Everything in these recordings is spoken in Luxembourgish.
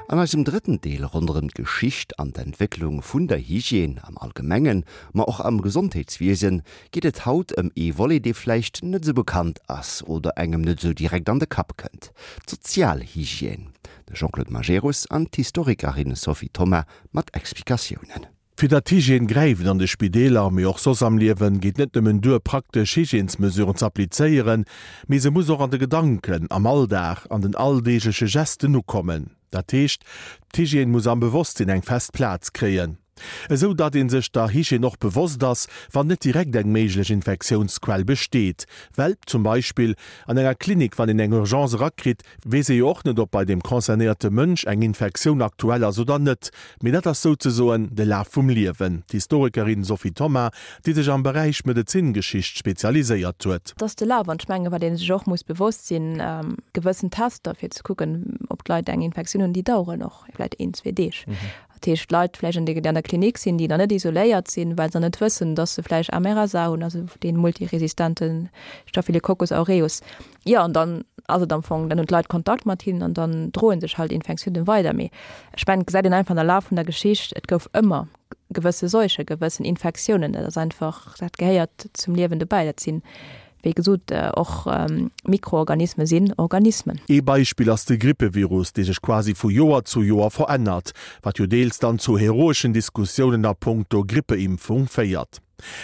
An eisem drëtten Deel ronderëm d'Geschicht an d'Entwécklung vun der Hygiène am Allgemengen, ma och am Gesondheetswiesen, geet et haut ëm ee Volet, dee vläicht net esou bekannt ass oder engem net esou direkt an de Kapp kënnt, d'Sozialhygiène. De Jean-Claude Majerus an d'Historikerin Sophie Thoma mat Explikatiounen. Fir datt d'Hygiène gräift an de Spideeler, mee och soss am Liewen, geet net nëmmen duer, praktesch Hygiènesmesuren z'applizéieren, mee se muss och an de Gedanken, am Alldag, an den alldeegleche Gesten ukommen. Dat heescht, d'Hygiène muss am Bewosstsinn eng fest Plaz kréien, esou datt ee sech der Hygiène och bewosst ass, wann net direkt eng méiglech Infektiounsquell besteet. Well zum Beispill an enger Klinik, wann een eng Urgence erakritt, weess ee jo och net, ob bei deem concernéierte Mënsch eng Infektioun aktuell ass oder net. Mee dat ass souzesoen de Laf vum Liewen. D'Historikerin Sophie Thoma, déi sech am Beräich Medezingeschicht spezialiséiert huet. Et ass de Laf an ech mengen, wat ee sech och muss bewosst sinn, gewëssen Tester fir ze kucken, ob d'Leit eng Infektioun hunn, déi daueren och vläicht een, zwee Deeg. Dat heescht, Leit vläicht, déi an der Klinik sinn, déi nach net isoléiert sinn, well se nach net wëssen, datt se vläicht MRSA hunn, also dee multiresistente Staphylococcus aureus. Jo, an dann ass et am Fong, dann hunn d'Leit Kontakt mat hinnen an dann droe sech halt Infektiounen weider. Mee ech mengen, et gesäit een einfach an der Laf vun der Geschicht, et gouf ëmmer gewësse Seuchen, gewëssen Infektiounen. Dat ass einfach, dat gehéiert zum Liewen dobäi. Dat sinn, wéi gesot, och Mikroorganisme sinn Organismen. Ee Beispill ass de Grippevirus, dee sech quasi vu Joer zu Joer verännert, wat jo deels dann zu heroeschen Diskussiounen a punkto Grippeimpfung féiert.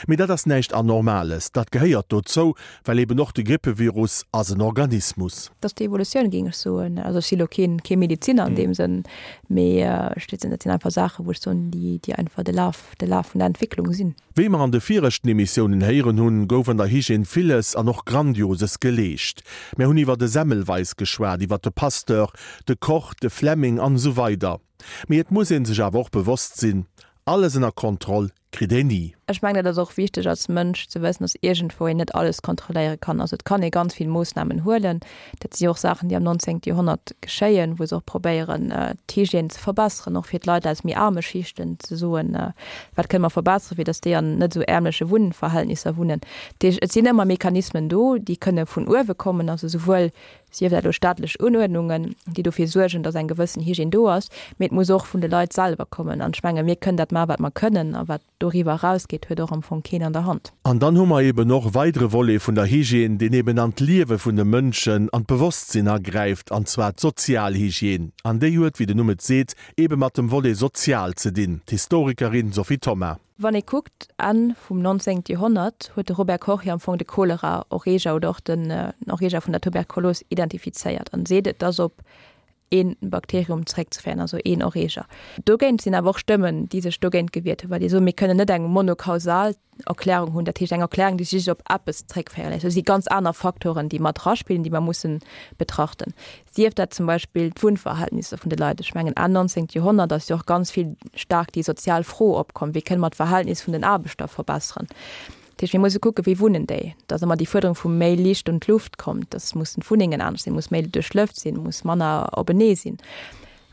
Mee dat ass näischt Anormales, dat gehéiert dozou, well eben och de Grippevirus ass en Organismus. Dat ass déi Evolutioun, géing ech soen. Also ech si lo keen, kee Medeziner an deem Sënn, mee ech dat sinn einfach Saachen, wou ech soen, déi, déi einfach de Laf, de Laf vun der Entwécklung sinn. Wéi mer an de viregten Emissiounen héieren hunn, gouf an der Hygiène villes an och Grandioses geleescht. Mär hunn iwwer de Semmelweis geschwat, iwwer de Pasteur, de Koch, de Fleming an esou weider. Mee et muss ee sech awer och bewosst sinn, Alles ënner Kontroll kritt een ni. Ech mengen, dat ass och wichteg als Mënsch ze wëssen, dass iergendwou een net alles kontrolléiere kann. Also et kann ee ganz vill Moossnamen huelen. Dat si och Saachen, déi am 19. Joerhonnert geschéien, wou se och probéieren, d'Hygiène ze verbesseren, och fir d'Leit aus méi aarme Schichten ze soen, wat kënne mer verbesseren, fir dass déi an net esou ärmleche Wunnverhältnisser wunnen. Dat heescht, et sinn ëmmer Mechanismen do, déi kënne vun uewe kommen, also souwuel sief dat elo staatlech Unuerdnungen, déi dofir suergen, datt eng gewëssen Hygiène do ass, mee et muss och vun de Leit selwer kommen. An ech menge mir kënnen dat maachen, wat mer kënnen, a wat doriwwer erausgeet, huet och am Fong keen an der Hand. An dann hu mer eben och e weidere Volet vun der Hygiène, deen eben an d'Liewe vun de Mënschen, an d'Bewosstsinn agräift, an zwar d'Sozialhygiène. An déi huet, wéi den Numm et seet, ebe mat dem Volet sozial ze dinn. D'Historikerin Sophie Thoma. Wann ee kuckt, Enn vum 19. Joerhonnert huet de Robert Koch jo am Fong de Cholera-Erreeger oder och den Erreeger vun der Tuberkulos identifizéiert an seet, et ass op ee Bakterium zeréckzeféieren, also een Erreeger. Dogéint sinn awer och Stëmmen, déi sech dogéint gewiert hunn, well déi soen, mir kënnen net eng monokausal Erklärung hunn, dat heescht eng Erklärung, déi sech just op eppes zeréckféiere léisst. Do si ganz aner Faktoren, déi mat eraspillen, déi mer mussen betrachten. Sief dat zum Beispill d'Wunnverhältnisser vun de Leit. Ech mengen Enn 19. Joerhonnert ass jo och ganz vill staark déi sozial Fro opkomm, wéi kënne mer d'Verhältnis vun den Aarbechter verbesseren. Dat heescht, mir musse kucken, wéi wunnen déi. Et ass ëmmer déi Fuerderung vu méi Liicht un d'Luft kommt, dass mussen d'Wunnengen anescht sinn, muss méi duerchlëft sinn, muss manner openee sinn.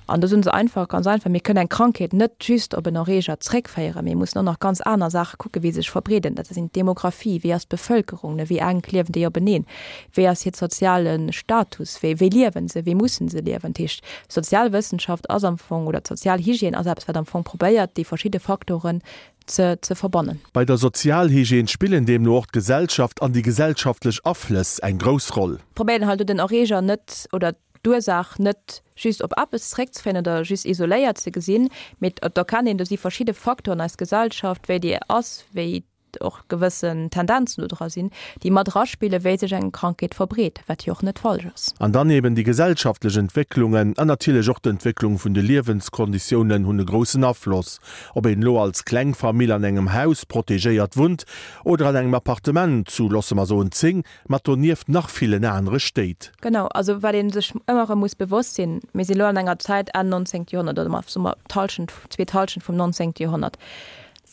An do soen se einfach, ganz einfach, mir kënnen eng Krankheet net just op en Erreeger zréckféieren, mir mussen och nach ganz aner Saache kucken, wéi se sech verbreeden. Dat sinn d'Demographie, wéi ass d'Bevëlkerung, wéi enk liewen déi openeen, wéi ass hiert soziale Status, wéi wéi liewen se, wéi mussen se liewen. Dat heescht, d'Sozialwëssenschaft ass am Fong, oder d'Sozialhygiène ass eppes, wat am Fong probéiert, déi verschidde Faktoren ze ze verbannen. Bei der Sozialhygiène spillen deemno och d'Gesellschaft an déi gesellschaftlech Aflëss eng grouss Roll. Probéieren halt do den Erreeger net, oder d'Ursaach net just op eppes zeréckzeféieren oder just isoléiert ze gesinn, mee et erkennt een, do si verschidde Faktoren, eis Gesellschaft, wéi déi ass, wéi och gewëssen Tendenzen do dra sinn, déi mat eraspillen, wéi sech eng Krankheet verbreet, wat jo och net falsch ass. An dann eben déi gesellschaftlech Entwécklungen an natierlech och d'Entwécklung vun de Liewenskonditiounen hunn e groussen Afloss, ob een elo als kleng Famill an engem Haus protegéiert wunnt oder an engem Appartement zu, loosse mer soen, 10, Mat donieft nach villen anere Stéit. Genau, also wat ee sech ëmmer erëm muss bewosst sinn, mir si lo an enger Zäit Enn 19. Joerhonnert oder soe mer d'Hallschent, zweet Hallschent vum 19. Joerhonnert,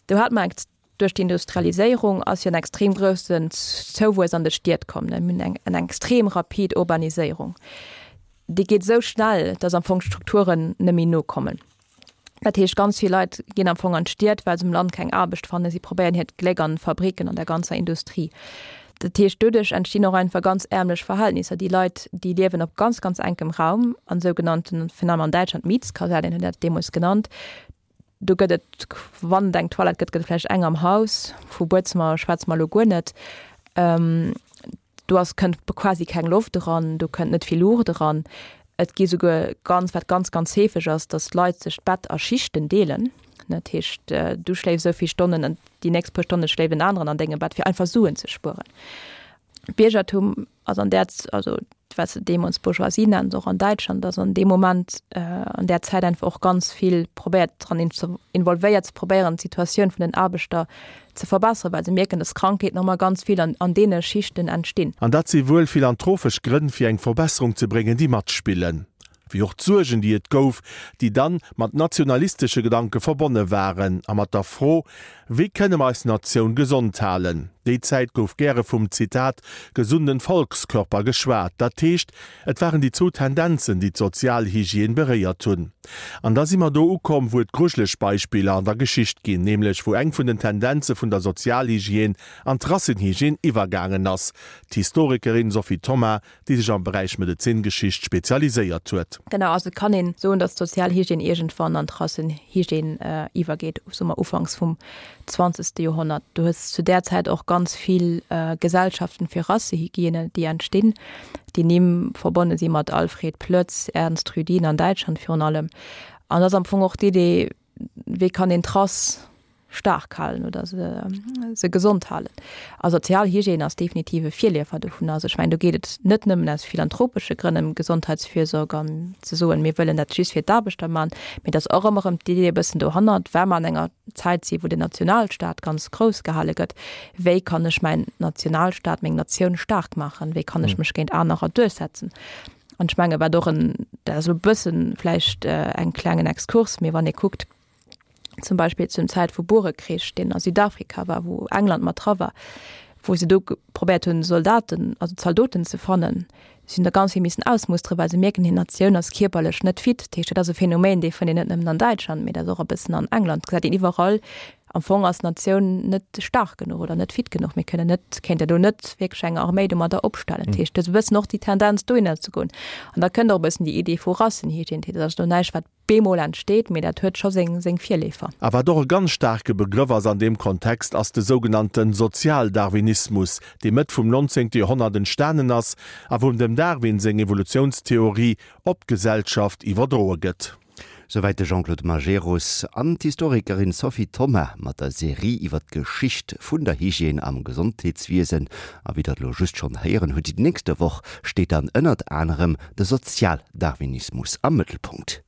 do hat mer eng, duerch d'Industrialiséierung ass jo en extrem groussen Zouwuess an de Stied komm, mir hunn eng eng extrem rapid Urbaniséierung, déi geet esou schnell, datt am Fong d'Strukturen net méi nokommen. Dat heescht, ganz vill Leit ginn am Fong an d'Stied, well se um Land keng Aarbecht fannen. Si probéieren hiert Gléck an Fabriken, an der ganzer Industrie. Dat heescht, doduerch entstinn och einfach ganz ärmlech Verhältnisser. Déi Leit, déi liewen op ganz, ganz enkem Raum an sougenannten, virun allem an Däitschland, Mietskasernen hunn dat deemools genannt. Do gëtt et, wann et eng Toilette gëtt, gëtt et vläicht eng am Haus. Vu Buedzëmmer schwätze mer elo guer net. Do ass, kënnt quasi keng Loft eran, do kënnt net vill Luucht eran. Et gi souguer ganz, wat ganz, ganz heefeg ass, datt d'Leit sech d'Bett a Schichten deelen. Dat heescht, du schléifs esou vill Stonnen an déi nächst puer Stonne schléift en aneren an dengem Bett, fir einfach Suen ze spueren. D'Biergertum ass an där, also wat se deemools Bourgeoisie nennen, och an Däitschland, ass an deem Moment, an där Zäit einfach och ganz vill probéiert dran involvéiert ze probéieren, d'Situatioun vun den Aarbechter ze verbesseren, well se mierken, dass Krankheeten och mol ganz vill an an deene Schichten entstinn. An dat si wuel philantrophesch Grënn, fir eng Verbesserung ze bréngen, déi matspillen. Wéi och d'Suergen, déi et gouf, déi dann mat nationalistesche Gedanke verbonne waren a mat der Fro, Wéi kënne mer eis Natioun gesond halen? Déi Zäit gouf gäre vum, Zitat, gesunden Volkskörper geschwat. Dat heescht, et waren déi zwou Tendenzen, déi d'Sozialhygiène beréiert hunn. An da si mer do ukomm, wou et grujeleg Beispiller an der Geschicht ginn, nämlech wou eng vun den Tendenze vun der Sozialhygiène an d'Rassenhygiène iwwergaangen ass. D'Historikerin Sophie Thoma déi sech am Beräich Medezingeschicht spezialiséiert huet. Genau, also et kann een soen, datt d'Sozialhygiène iergendwann an d'Rassenhygiène iwwergeet, soe mer ufanks vum zwanzegste Joerhonnert. Du hues zu där Zäit och ganz vill Gesellschaften fir Rassehygiène, déi entstinn, déi Nimm verbonne si mat Alfred Ploetz, Ernst Rüdin an Däitschland virun allem. An dat ass am Fong och d'Idee, wéi kann een d'Rass staark halen oder se, se gesond halen. A Sozialhygiène ass definitiv e Virleefer dovun. Also ech mengen, do geet et net nëmmen aus philanthropesche Grënn ëm Gesondheitsfürsorg an ze soen, mir wëllen dat just fir d'Aarbechter man, mee et ass och ëmmer erëm d'Idee e bëssen dohannert, well mer an enger Zäit si wou den Nationalstaat ganz grouss gehale gëtt, wéi kann ech mäin Nationalstaat, meng Natioun staark maachen, wéi kann ech mech géint anerer duerchsetzen? An ech menge wat och en, dat ass elo e bëssen vläicht eng klengen Exkurs, mee wann ee kuckt, zum Beispill zum Zäit vu Burekrich, deen a Südafrika war, wou England mat dra war, wou se do probéiert hunn, Soldaten, also Zaldoten ze fannen, si hunn der ganz vill missen ausmusteren, well se mierken, hir Natioun ass kierperlech net fit. Dat heescht, dat ass e Phänomen, dee fënnt een net nëmmen an Däitschland, mee dat ass och e bëssen an England, gesäit een iwwerall. Am Fong ass d'Natioun net staark genuch oder net fit genuch. Mir kënnen net, kéinte do net wierklech eng Arméi domadder opstellen. Dat heescht, do ass e bëssen och déi Tendenz dohinner ze goen. An da kënnt och e bëssen déi Idee vu Rassenhygiène. Dat ass elo näischt, wat bemol entsteet, mee dat huet scho seng seng Virleefer. A wat och e ganz staarke Begrëff ass an deem Kontext, ass de sougenannte Sozialdarwinismus, dee Mëtt vum 19. Joerhonnert entstanen ass a wou dem Darwin seng Evolutiounstheorie op d'Gesellschaft iwwerdroe gëtt. Souwäit de Jean-Claude Majerus an d'Historikerin Sophie Thoma mat der Serie iwwer d'Geschicht vun der Hygiène am Gesondheetswiesen. A wéi der et elo just schonn héieren hutt, déi nächste Woch steet dann ënnert anerem de Sozialdarwinismus am Mëttelpunkt.